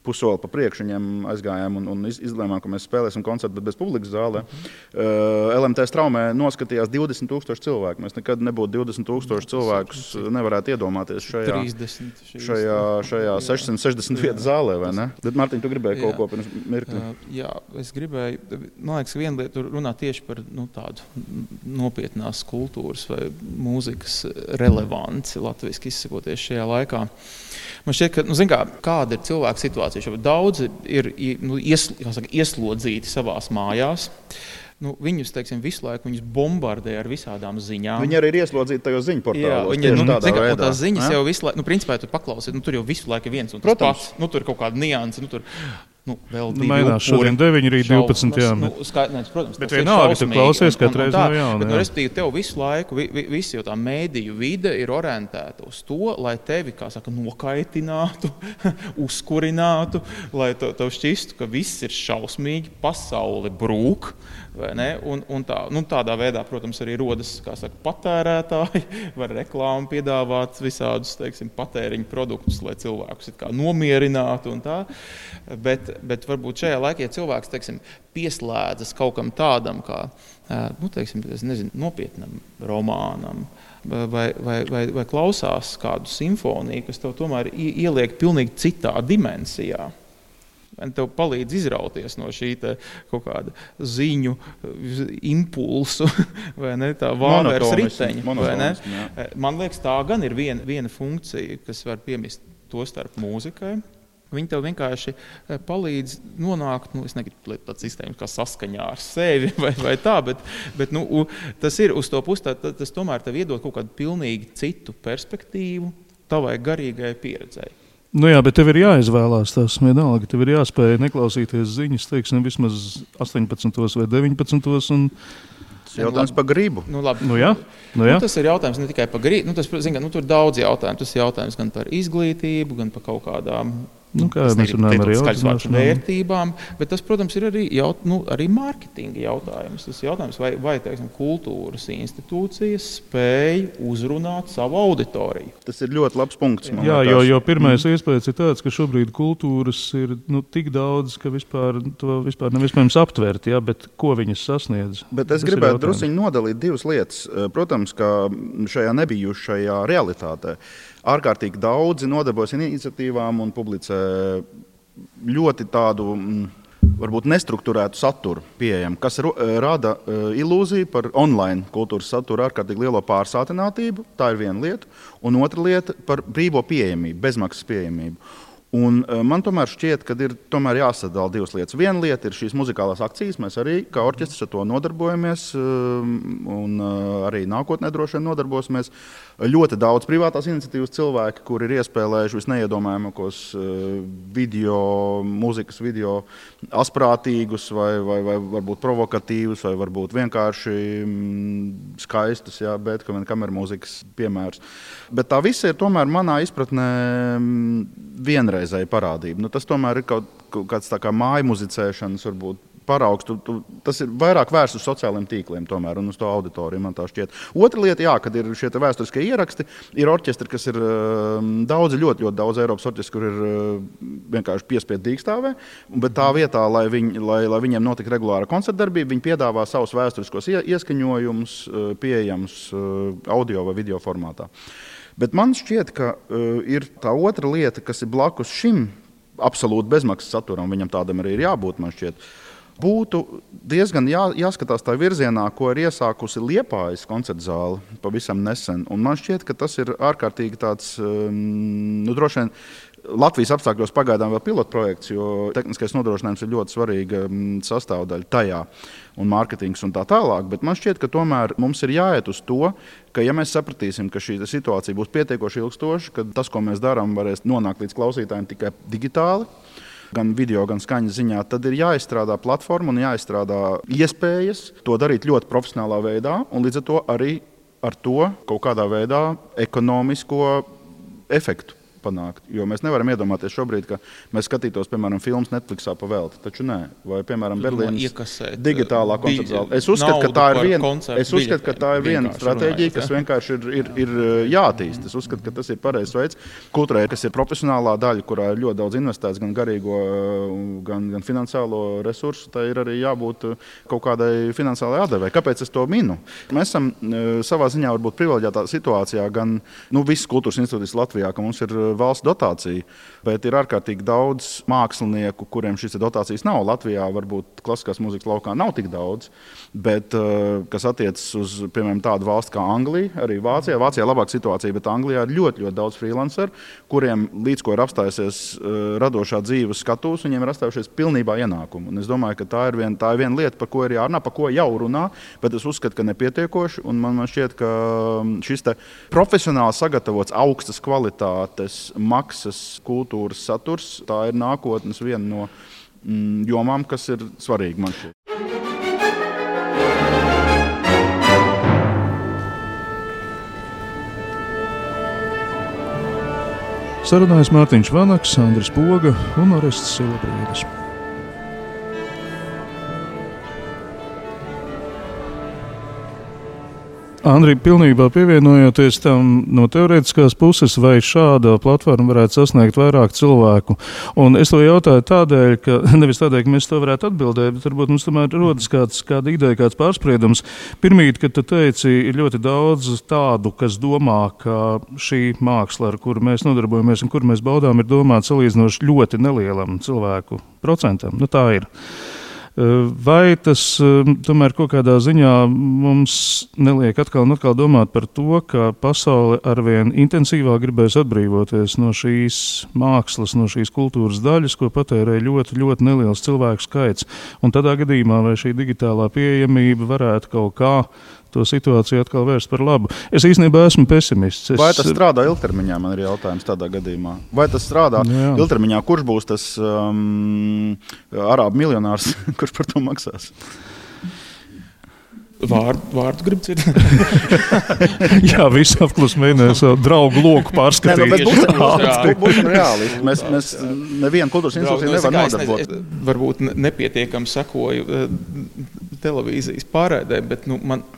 pussoli pa priekšu viņiem aizgājām un izlēmām, ka mēs spēlēsim koncertu, bet bez publikas zālē. LMT straumē noskatījās 20,000 cilvēku. Mēs nekad nebūtu 20,000 cilvēkus nevarētu iedomāties šajā 660 vietu zālē, vai ne? Bet, Mārtiņ, tu gribēji kaut ko pirms mirkli? Jā, es gribēju, man liekas, viena lieta runāt tieši par tādu nopietnās kultūras vai mūzikas relevanci, latviski izsakoties šajā laikā. Man šķiet, ka, kāda ir cilvēka situācija? Daudzi ir ieslodzīti savās mājās. Viņus, visu laiku viņus bombardē ar visādām ziņām. Viņi arī ir ieslodzīti tajos ziņu portālos. Jā, tās ziņas jau visu laiku, principā, tu paklausies, tur jau visu laiku ir viens un tas pats. Tur ir kaut kāda nianse, tur vēl divi mainās šodien 9, rīt 12, jā. Protams, bet vienalga, tu klausies katreiz no jauna. Bet, respektīvi, tev visu laiku, visi jau tā mēdīju vide ir orientēta uz to, lai tevi, kā saka, nokaitinātu, uzkurinātu, lai tev šķistu, ka viss ir šausmīgi, pasaule brūk, vai ne? Un tādā veidā, protams, arī rodas, kā saka, patērētāji, var reklāmu piedāvāt visādus, teiksim, patēriņu produktus, lai cilvēkus it kā nomierinātu un tā. Bet varbūt šajā laikā, ja cilvēks, teiksim, pieslēdzas kaut kam tādam, kā, teiksim, nopietnam romānam, vai klausās kādu simfoniju, kas tev tomēr ieliek pilnīgi citā dimensijā. Tev palīdz izrauties no šī kaut kāda ziņu impulsu, vai ne, tā vāveres riteņa. Vai ne? Man liekas, tā gan ir viena funkcija, kas var piemist to starp mūzikai. Viņi tev vienkārši palīdz nonākt, es negribu tāds sistēmas kā saskaņā ar sevi vai tā, bet tas ir uz to pusi, tas tomēr tev iedod kaut kādu pilnīgi citu perspektīvu tavai garīgai pieredzei. Jā, bet tev ir jāizvēlās tās vienalga, tev ir jāspēj neklausīties ziņas, teiksim, vismaz 18 vai 19. Jautājums par gribu. Jā. Tas ir jautājums ne tikai par gribu, tur ir daudz jautājumu. Tas ir jautājums gan par izglītību, gan par kaut kādām vērtībām, bet tas, protams, ir arī mārketinga jautājums. Tas jautājums, vai teiksim, kultūras institūcijas spēj uzrunāt savu auditoriju. Tas ir ļoti labs punkts. Jo pirmais iespējas ir tāds, ka šobrīd kultūras ir tik daudz, ka to vispār nav iespējams aptvert, bet ko viņas sasniedz. Bet es gribētu drusciņi nodalīt divas lietas. Protams, ka šajā nebijušajā realitātē ārkārtīgi daudzi nodarbojas iniciatīvām un publicē ļoti tādu, varbūt nestrukturētu saturu pieejamu, kas rada ilūziju par online kultūras saturu ārkārtīgi lielo pārsātinātību. Tā ir viena lieta. Un otra lieta par brīvo pieejamību, bezmaksas pieejamību. Un man tomēr šķiet, ka ir jāsadala divas lietas. Viena lieta ir šīs muzikālās akcijas. Mēs arī kā orķestris ar to nodarbojamies un arī nākotnē droši vien nodarbosimies. Ļoti daudz privātās iniciatīvas cilvēki, kuri ir iespēlējuši visneiedomājamākos mūzikas video asprātīgus vai varbūt provokatīvus vai varbūt vienkārši skaistus, Beethovena kamermūzikas piemērs. Bet tā visa ir tomēr manā izpratnē vienreizēja parādība. Tas tomēr ir kaut kāds tā kā māju muzicēšanas varbūt paraugs. Tas ir vairāk vērsts uz sociālajiem tīkliem tomēr un uz to auditoriju, man tā šķiet. Otra lieta, kad ir šie vēsturiskie ieraksti, ir orķestri, kas ir daudzi, ļoti daudz Eiropas orķestri, kur ir vienkārši piespiedu dīkstāvē, bet tā vietā, lai viņiem notika regulāra koncertdarbība, viņi piedāvā savus vēsturiskos ieskaņojumus pieejams audio vai video formātā. Bet man šķiet, ka ir tā otra lieta, kas ir blakus šim absolūti bezmaksas saturam, viņam tādam arī ir jābūt, man šķiet. Būtu diezgan jāskatās tā virzienā, ko ir iesākusi Liepājas koncertzāle pavisam nesen. Un man šķiet, ka tas ir ārkārtīgi tāds, droši vien Latvijas apstākļos pagaidām vēl pilotprojekts, jo tehniskais nodrošinājums ir ļoti svarīga sastāvdaļa tajā un mārketings un tā tālāk. Bet man šķiet, ka tomēr mums ir jāiet uz to, ka ja mēs sapratīsim, ka šī situācija būs pietiekoši ilgstoša, ka tas, ko mēs darām, varēs nonākt līdz klausītājiem tikai digitāli, gan video, gan skaņas ziņā, tad ir jāizstrādā platforma un jāizstrādā iespējas to darīt ļoti profesionālā veidā un līdz ar to arī ar to kaut kādā veidā ekonomisko efektu panākt. Jo mēs nevaram iedomāties šobrīd, ka mēs skatītos, piemēram, filmas Netflixā pa velti, taču nē. Vai, piemēram, Berlīnas digitālā koncertzāle. Es uzskatu, ka tā ir viena stratēģija, kas vienkārši ir jāattīst. Es uzskatu, ka tas ir pareizs veids. Kultūrai, kas ir profesionālā daļa, kurā ir ļoti daudz investēts gan garīgo, gan finansiālo resursu, tai ir arī jābūt kaut kādai finansiālai atdevei. Kāpēc es to minu? Mēs esam savā ziņā varbūt privileģētā situācijā gan visas kultūras institūcijas Latvijā, ka mums ir valsts dotācija, bet ir ārkārtīgi daudz mākslinieku, kuriem šīs dotācijas nav. Latvijā varbūt klasiskās mūzikas laukā nav tik daudz, bet kas attiecas uz, piemēram, tādu valsti kā Anglija, arī Vācijā. Vācijā labāka situācija, bet Anglijā ir ļoti, ļoti daudz freelanceru, kuriem līdz ko ir apstājusies radošā dzīves skatūs, viņiem ir apstājušies pilnībā ienākumu. Un es domāju, ka tā ir viena lieta, par ko ir jārunā, par ko jau runā, bet es uzskatu, ka nepietiekoši, un man šķiet, ka šis te profesionāli sagatavots augstas kvalitātes maksas kultūras saturs, tā ir nākotnes viena no jomām, kas ir svarīgi man šeit. Sarunājas Mārtiņš Vanaks, Andris Poga un Orests Silabrīdis. Andri, pilnībā pievienojoties tam no teorētiskās puses, vai šāda platforma varētu sasniegt vairāk cilvēku? Un es to jautāju tādēļ, ka nevis tādēļ, ka mēs to varētu atbildēt, bet varbūt mums tomēr rodas kāda ideja, kāds pārspriedums. Pirmīt, kad tu teici, ir ļoti daudz tādu, kas domā, ka šī māksla, ar kuru mēs nodarbojamies un kuru mēs baudām, ir domāta salīdzinoši ļoti nelielam cilvēku procentam. Nu, tā ir. Vai tas tomēr kaut kādā ziņā mums neliek atkal un atkal domāt par to, ka pasaule arvien intensīvāk gribēs atbrīvoties no šīs mākslas, no šīs kultūras daļas, ko patērē ļoti, ļoti neliels cilvēku skaits? Un tādā gadījumā vai šī digitālā pieejamība varētu kaut kā to situāciju atkal vērst par labu? Es īstenībā esmu pesimists. Vai tas strādā ilgtermiņā, man ir jautājums tādā gadījumā? Vai tas strādā ilgtermiņā? Kurš būs tas arābu miljonārs, kurš par to maksās? Vārdu grib dzirdēt? Jā, visi apklus mēģināja savu draugu loku pārskatīt. Būsim reālisti. Mēs nevienu kultūras institūciju nevar nodarbot. Varbūt nepietiekami sekoju televīzijas pārēdē, bet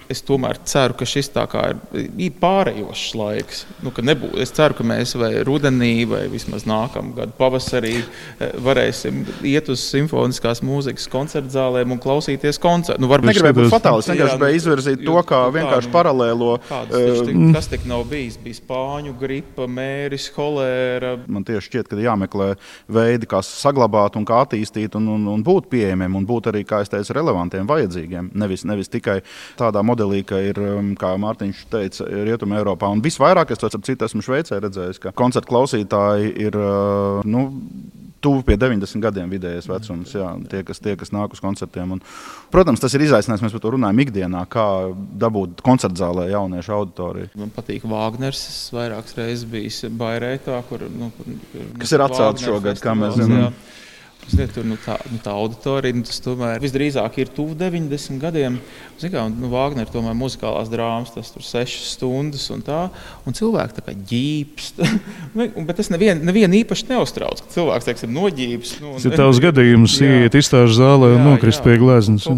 es tomēr ceru, ka šis tā kā ir pārējošs laiks. Ka nebūs. Es ceru, ka mēs vai rudenī, vai vismaz nākamgad pavasarī varēsim iet uz simfoniskās mūzikas koncertzālēm un klausīties koncertu. Negribēju būt fatālis, gribēju izvirzīt to kā vienkārši paralēlo. Kas tik nav bijis? Bija spāņu gripa, mēris, holēra. Man tieši šķiet, ka jāmeklē veidi, kā saglabāt un kā attīstīt un būt pieejamiem un būt arī, kā es teicu, relevantiem, vajadzīgiem. Nevis tikai tādā modelī, ka ir, kā Mārtiņš teica, Rietuma Eiropā. Un visvairāk, es to ap citu esmu Šveicē redzējis, ka koncertu klausītāji ir, tuvu pie 90 gadiem vidējais vecums, tie, kas nāk uz koncertiem. Un, protams, tas ir izaicinājums, mēs par to runājam ikdienā, kā dabūt koncertzālē jauniešu auditoriju. Man patīk Vāgners, es vairākas reizes bijis Bairētā, kur kas ir atcelts šogad, kā mēs zinām. Tur tā auditorija, tas tomēr visdrīzāk ir tuvu 90 gadiem. Vāgner tomēr muzikālās drāmas, tas tur 6 stundas un tā, un cilvēki tā kā ģīpst. Bet tas nevienu īpaši neuztrauc, ka cilvēks, teiksim, noģīpst. Tas ir tavs gadījums, iet izstāžu zālē un nokrist pie gleznas.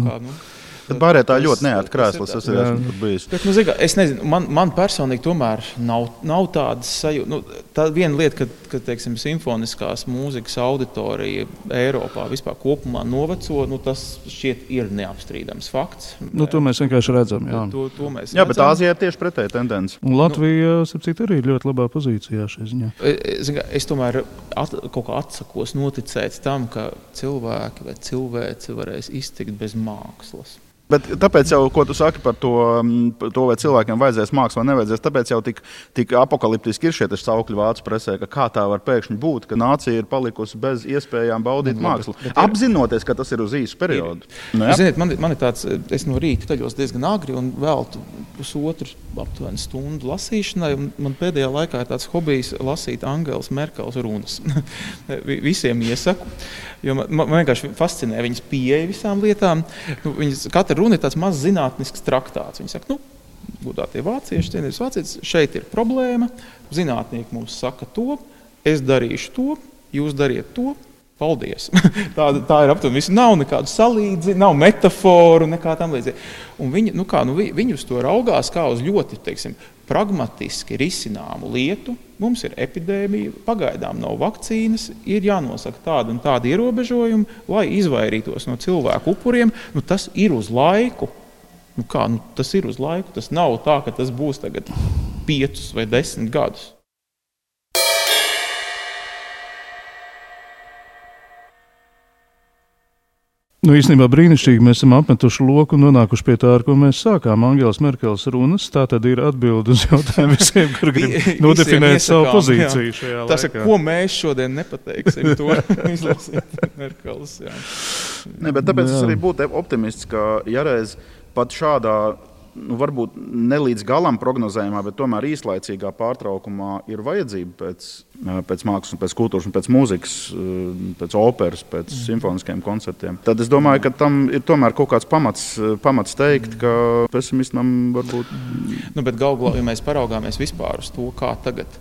Bet Bairētā ļoti neērti krēslas, es esmu tur bijis. Bet, es nezinu, man personīgi tomēr nav tādas sajūta. Tā viena lieta, ka teiksim, simfoniskās mūzikas auditorija Eiropā vispār kopumā noveco, tas šķiet ir neapstrīdams fakts. To mēs vienkārši redzam. Jā, bet Āzijā ir tieši pretēji tendence. Un Latvija, sapcīt, arī ir ļoti labā pozīcijā šajā ziņā. Es tomēr kaut kā atsakos noticēt tam, ka cilvēki vai cilvēci varēs iztikt bez mākslas. Bet tāpēc jau, ko tu saki par to vai cilvēkiem vajadzēs mākslu vai nevajadzēs, tāpēc jau tik apokaliptiski ir šie saukļi vācu presē, ka kā tā var pēkšņi būt, ka nācija ir palikusi bez iespējām baudīt mākslu. Apzinoties, ka tas ir uz īsu periodu. Ziniet, man ir tāds, es no rīta ceļos diezgan agri un veltu pusotru aptuveni stundu lasīšanai. Man pēdējā laikā ir tāds hobijs lasīt Angelas Merkels runas. Visiem iesaku, jo man vienkārši fascinē viņas pieeja visām lietām. Katra runa ir tāds mazs zinātnisks traktāts. Viņi saka, godātie vācieši, cienītas vācietis, šeit ir problēma, zinātnieki mums saka to, es darīšu to, jūs dariet to, paldies. Tā ir aptuveni viss. Nav nekādu salīdzi, nav metaforu, nekā tam līdzīgi. Un viņi uz to raugās kā uz ļoti, teiksim, pragmatiski risināmu lietu. Mums ir epidēmija, pagaidām nav vakcīnas, ir jānosaka tāda un tāda ierobežojuma, lai izvairītos no cilvēku upuriem. Tas ir uz laiku. Tas ir uz laiku. Tas nav tā, ka tas būs tagad 5 vai 10 gadus. Īstenībā brīnišķīgi mēs esam apmetuši loku un nonākuši pie tā, ar ko mēs sākām. Angelas Merkeles runas, tā tad ir atbilde uz jautājumu visiem, kur grib nodefinēt savu pozīciju šajā laikā. Tas ir, ko mēs šodien nepateiksim, to izlasīt Merkeles. Bet tāpēc es arī būtu optimists, ka ja reiz pat šādā varbūt ne līdz galam prognozējumā, bet tomēr īslaicīgā pārtraukumā ir vajadzība pēc mākslas, pēc kultūras, pēc mūzikas, pēc operas, pēc simfoniskiem koncertiem. Tad es domāju, ka tam ir tomēr kaut kāds pamats teikt, ka pesimismam varbūt... Bet galvā, ja mēs paraugāmies vispār uz to, kā tagad,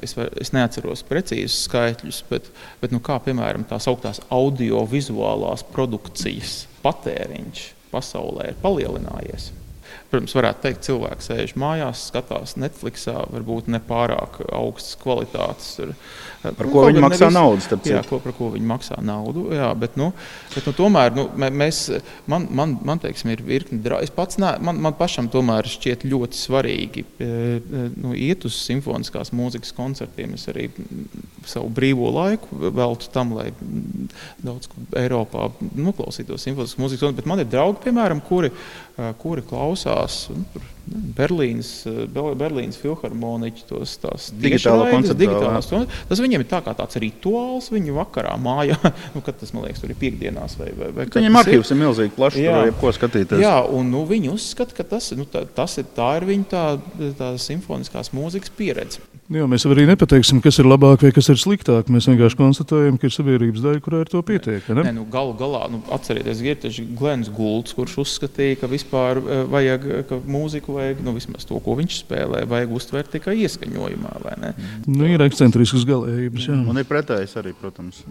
es neatceros precīzus skaitļus, bet kā, piemēram, tās augtās audiovizuālās produkcijas patēriņš pasaulē ir palielinājies. Protams, varētu teikt, cilvēks sēž mājās, skatās Netflixā, varbūt nepārāk augstas kvalitātes. Par ko viņi maksā naudu, starp citu. Jā, par ko viņi maksā naudu, jā, bet tomēr, man teiksim, ir virkni draugi. Man pašam tomēr šķiet ļoti svarīgi iet uz simfoniskās mūzikas koncertiem. Es arī savu brīvo laiku veltu tam, lai daudz Eiropā noklausītos simfoniskas mūzikas, bet man ir draugi, piemēram, kuri klausās Berlīnas filharmoniķi, tās digitālās. Tas viņiem ir tā kā tāds rituāls viņu vakarā mājā, kad tas, man liekas, tur ir piekdienās vai viņiem arhīvs ir milzīgi plašs, tur jebko skatīties. Jā, un viņi uzskata, ka tā ir viņa tā simfoniskās mūzikas pieredze. Jā, mēs arī nepateiksim, kas ir labāk vai kas ir sliktāk. Mēs vienkārši konstatējam, ka ir sabiedrības daļa, kurā ir to pietiek. Galu galā, atcerieties, ir taču Glens Goulds, kurš uzskatīja, ka vispār vajag, ka mūziku vajag, vismaz to, ko viņš spēlē, vajag uztvert tikai ieskaņojumā, vai ne? Ir ekscentriskas galējības, jā. Un ir pretējs arī, protams.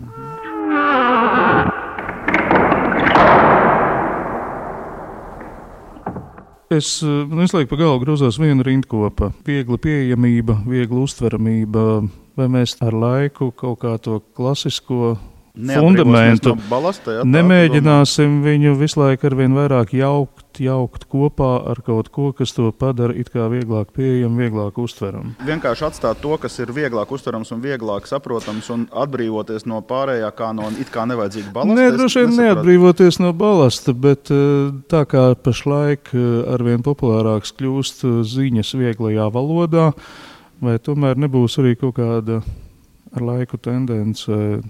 Es visu laiku pa galvu grozās viena rindkopa. Viegla pieejamība, viegla uztveramība. Vai mēs ar laiku kaut kā to klasisko fundamentu nemēģināsim viņu visu laiku arvien vairāk jaukt kopā ar kaut ko, kas to padara it kā vieglāk pieejam, vieglāk uztveram. Vienkārši atstāt to, kas ir vieglāk uztverams un vieglāk saprotams un atbrīvoties no pārējā kā no it kā nevajadzīga balasta. Nē, droši vien neatbrīvoties no balasta, bet tā kā pašlaik arvien populārāks kļūst ziņas vieglajā valodā, vai tomēr nebūs arī kaut kāda ar laiku tendence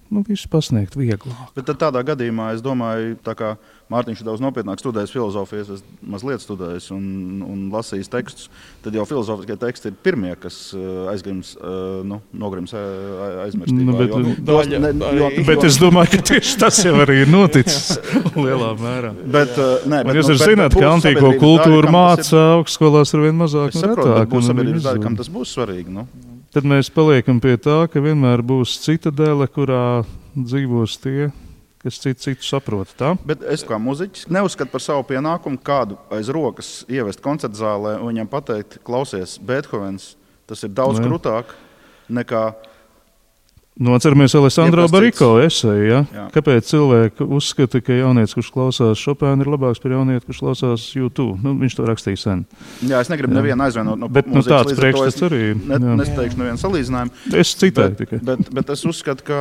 visu pasniegt vieglāk. Bet tad tādā gadījumā, es domāju, tā kā Mārtiņš ir daudz nopietnāk studējis filozofijas, es mazliet studējis un lasījis tekstus, tad jau filozofiskie teksti ir pirmie, kas nogrims aizmirstībā. Bet es domāju, ka tieši tas jau arī ir noticis lielā mērā. Jūs zināt, ka antīko kultūru māca augstskolās ar vien mazāk un retāk. Būs sabiedrības daļa, kam tas būs svarīgi, Tad mēs paliekam pie tā, ka vienmēr būs citadele, kurā dzīvos tie, kas citu saprot. Tā? Bet es kā muziķis neuzskatu par savu pienākumu kādu aiz rokas ievest koncertzālē un viņam pateikt, klausies, Beethovens, tas ir daudz krūtāk nekā... Atceramies Alessandro Bariko eseju, ja? Kāpēc cilvēki uzskata, ka jaunietis, kurš klausās Chopinu, ir labāks par jaunieti, kurš klausās U2. Viņš to rakstīja sen. Jā, es negribu nevienu aizvainot no mūzikas, tāds priekšstats arī. Nesteikšu nevienu salīdzinājumu. Es citēju tikai. Bet es uzskatu, ka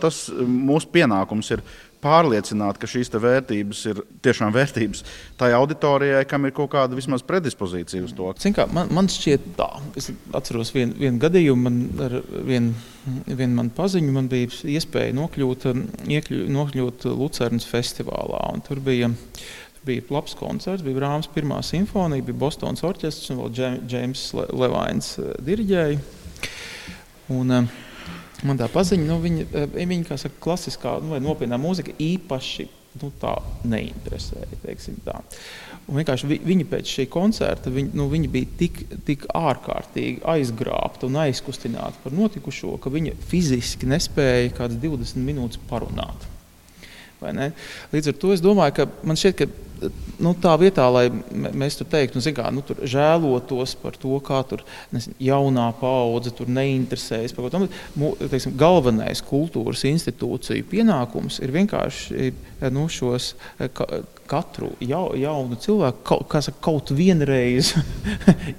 tas mūsu pienākums ir pārliecināt, ka šīs vērtības ir tiešām vērtības tai auditorijai, kam ir kaut kāda vismaz predispozīcija uz to. Man šķiet tā. Es atceros vienu gadījumu, man ar vienu man paziņu, man bija iespēja nokļūt Lucernas festivālā. Un tur bija labs koncerts, bija Brāhms pirmā simfonija, bija Bostonas orķestrs un vēl Džeims Levains diriģēja. Un man tā paziņa, viņa kā saka, klasiskā vai nopietnā mūzika īpaši tā neinteresēja, teiksim tā. Un vienkārši viņi pēc šī koncerta, viņi bija tik ārkārtīgi aizgrābti un aizkustināti par notikušo, ka viņi fiziski nespēja kādas 20 minūtes parunāt. Vai ne? Līdz ar to es domāju, ka man šķiet, ka tā vietā, lai mēs tur teiktu, tur žēlotos par to, kā tur jaunā paudze tur neinteresējas par kaut ko, galvenais kultūras institūciju pienākums ir vienkārši šos katru jaunu cilvēku kaut vienreiz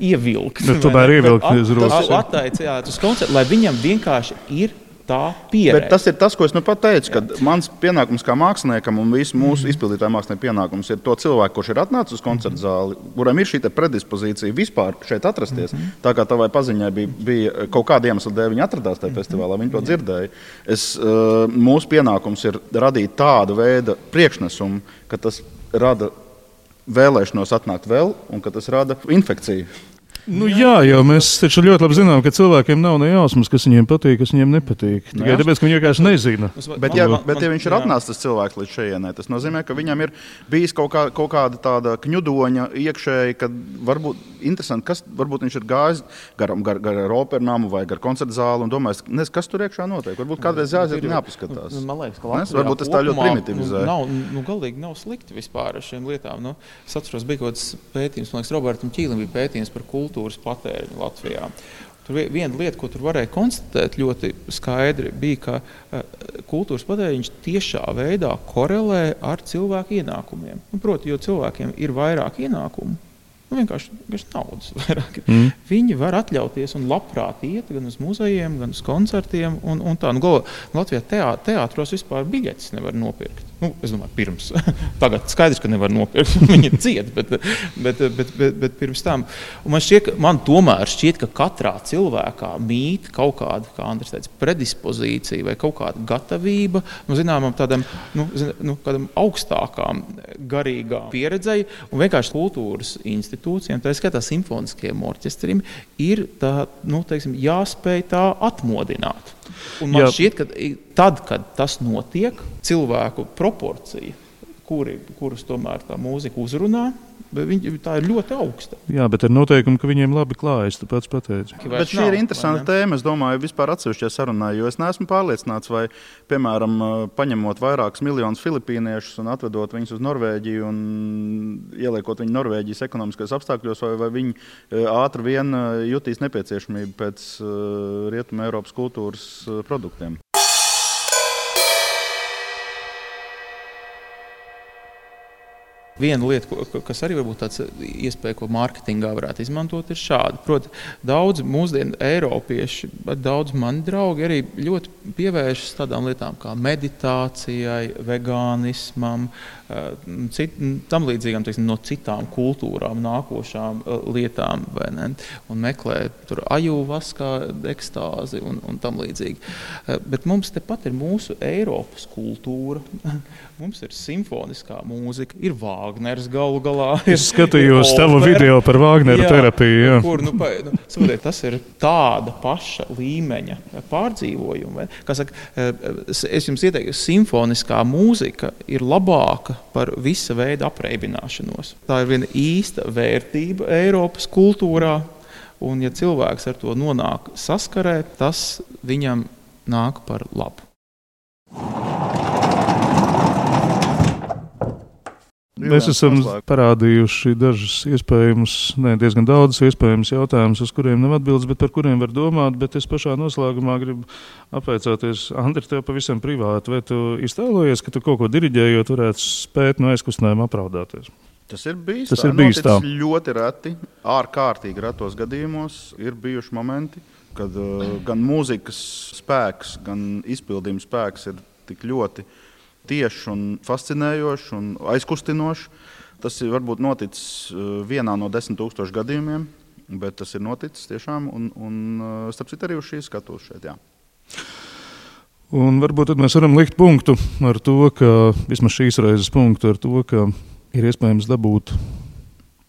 ievilkt. Tomēr ievilkt uz rokas. Attaicināt uz koncertu, lai viņam vienkārši ir tā pieredze. Bet tas ir tas, ko es pat teicu, ka mans pienākums kā māksliniekam un visu mūsu izpildītāju mākslinieku pienākums ir to cilvēku, kurš ir atnācis uz koncertu zāli, kuram ir šī predispozīcija vispār šeit atrasties. Tā kā tavai paziņai bija kaut kāda iemesla dēļ, viņi atradās tajā festivālā, viņi to dzirdēja. Mūsu pienākums ir radīt tādu veidu priekšnesumu, ka tas rada vēlēšanos atnākt vēl, un ka tas rada infekciju. Jā, jau mēs taču ļoti labi zinām, ka cilvēkiem nav ne jausmas, kas viņiem patīk, kas viņiem nepatīk. Tikai tāpēc, ka viņi vienkārši nezina. Bet ja viņš ir atnācis tas cilvēks līdz šejienai, tas nozīmē, ka viņam ir bijis kaut kāda tāda kņudoņa iekšēji, kad varbūt interesanti, kas varbūt viņš ir gājis gar opernamu vai gar koncertu zāli un domājis, kas tur iekšā notiek. Varbūt kādreiz jāaiziet un jāpaskatās. Man liekas, ka Latvijā varbūt tas tā ļoti primitivizē. Galīgi nav slikti vispār ar šiem lietām. Es atceros, bija kaut kāds pētījums, man liekas, Robertam Ķīlim bija pētījums par kultūras patēriņu Latvijā. Tur viena lieta, ko tur varēja konstatēt ļoti skaidri, bija, ka kultūras patēriņš tiešā veidā korelē ar cilvēku ienākumiem. Proti, jo cilvēkiem ir vairāk ienākumu, vienkārši naudas vairāk. Viņi var atļauties un labprāt iet gan uz muzejiem, gan uz koncertiem. Un tā. Latvijā teātros vispār biļetes nevar nopirkt. Es domāju, pirms. Tagad skaidrs, ka nevar nopirkt. Viņi ciet, bet pirms tam. Un man tomēr šķiet, ka katrā cilvēkā mīt kaut kāda, kā Andris teica, predispozīcija vai kaut kāda gatavība, zināmam tādam, kādam augstākām garīgām pieredzei. Un vienkārši kultūras institūcijām, tā skatā simfoniskajiem orķestriem, ir tā, teiksim, jāspēj tā atmodināt. Un man šķiet, ka tad, kad tas notiek, cilvēku proporcija, kurus tomēr tā mūzika uzrunā, tā ir ļoti augsta. Jā, bet ar noteikumu, ka viņiem labi klājas, tu pats pateici. Bet šī ir interesanta tēma, es domāju, vispār atsevišķajā sarunā, jo es neesmu pārliecināts, vai, piemēram, paņemot vairākus miljonus filipīniešus un atvedot viņus uz Norvēģiju un ieliekot viņu Norvēģijas ekonomiskajos apstākļos, vai viņi ātri vien jutīs nepieciešamību pēc Rietuma Eiropas kultūras produktiem. Viena lieta, kas arī varbūt tāds iespēja, ko mārketingā varētu izmantot, ir šāda. Proti, daudz mūsdienu eiropieši, daudz mani draugi arī ļoti pievēršas tādām lietām kā meditācijai, vegānismam, tam līdzīgām, teiksim, no citām kultūrām nākošām lietām, vai ne? Un meklē tur ajūvaskā ekstāzi un tam līdzīgi. Bet mums tepat ir mūsu Eiropas kultūra, mums ir simfoniskā mūzika, ir Vāgners galu galā. Es skatījos tavu video par Vāgneru terapiju. Jā. Kur, saprotiet, tas ir tāda paša līmeņa pārdzīvojuma. Kā saka, es jums ieteiktu, simfoniskā mūzika ir labāka par visa veida apreibināšanos. Tā ir viena īsta vērtība Eiropas kultūrā, un ja cilvēks ar to nonāk saskarē, tas viņam nāk par labu. Mēs esam parādījuši diezgan daudz iespējamus jautājumus, uz kuriem nav atbildes, bet par kuriem var domāt. Bet es pašā noslēgumā gribu apveicāties, Andri, tev pavisam privāti. Vai tu iztēlojies, ka tu kaut ko diriģējot varētu spēt no aizkustinājuma apraudāties? Tas ir bijis tā. Ļoti reti, ārkārtīgi retos gadījumos ir bijuši momenti, kad gan mūzikas spēks, gan izpildījuma spēks ir tik ļoti tieši un fascinējoši un aizkustinoši. Tas ir varbūt noticis vienā no 10 000 gadījumiem, bet tas ir noticis tiešām un starp citu arī uz šīs skatuves šeit, jā. Un varbūt tad mēs varam likt punktu ar to, ka, vismaz šīs reizes punktu ar to, ka ir iespējams dabūt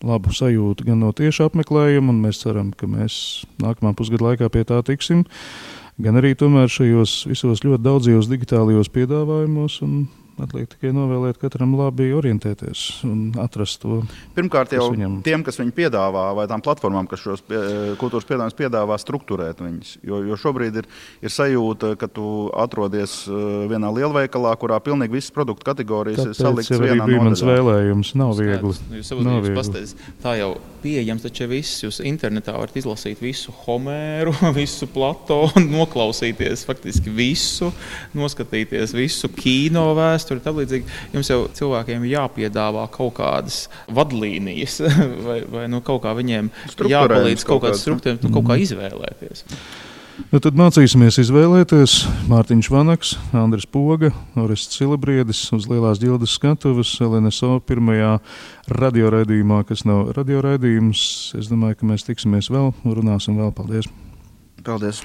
labu sajūtu gan no tieša apmeklējuma, un mēs ceram, ka mēs nākamā pusgada laikā pie tā tiksim, gan arī tomēr šajos visos ļoti daudzajos digitālajos piedāvājumos, un atliek tikai novēlēt katram labi orientēties un atrast to. Pirmkārt jau tiem, kas viņu piedāvā, vai tām platformām, kas šos kultūras piedāvājumus piedāvā, strukturēt viņus. Jo šobrīd ir sajūta, ka tu atrodies vienā lielveikalā, kurā pilnīgi visas produktu kategorijas ir salikts vienā nodaļā. Bija mans vēlējums, nav viegli. Jūs pastāstīs, tā jau pieejams, taču viss, jūs internetā varat izlasīt visu Homēru, visu Platonu, noklausīties faktiski visu, noskatīties visu kino vēsturi. Jums jau cilvēkiem jāpiedāvā kaut kādas vadlīnijas vai kaut kā viņiem jāpalīdz kaut kādas struktūras, kaut kā izvēlēties. Tad mācīsimies izvēlēties Mārtiņš Vanaks, Andris Poga, Orests Silabriedis uz Lielās ģildes skatuves LNSO pirmajā radioraidījumā, kas nav radioraidījums. Es domāju, ka mēs tiksimies vēl un runāsim vēl. Paldies! Paldies!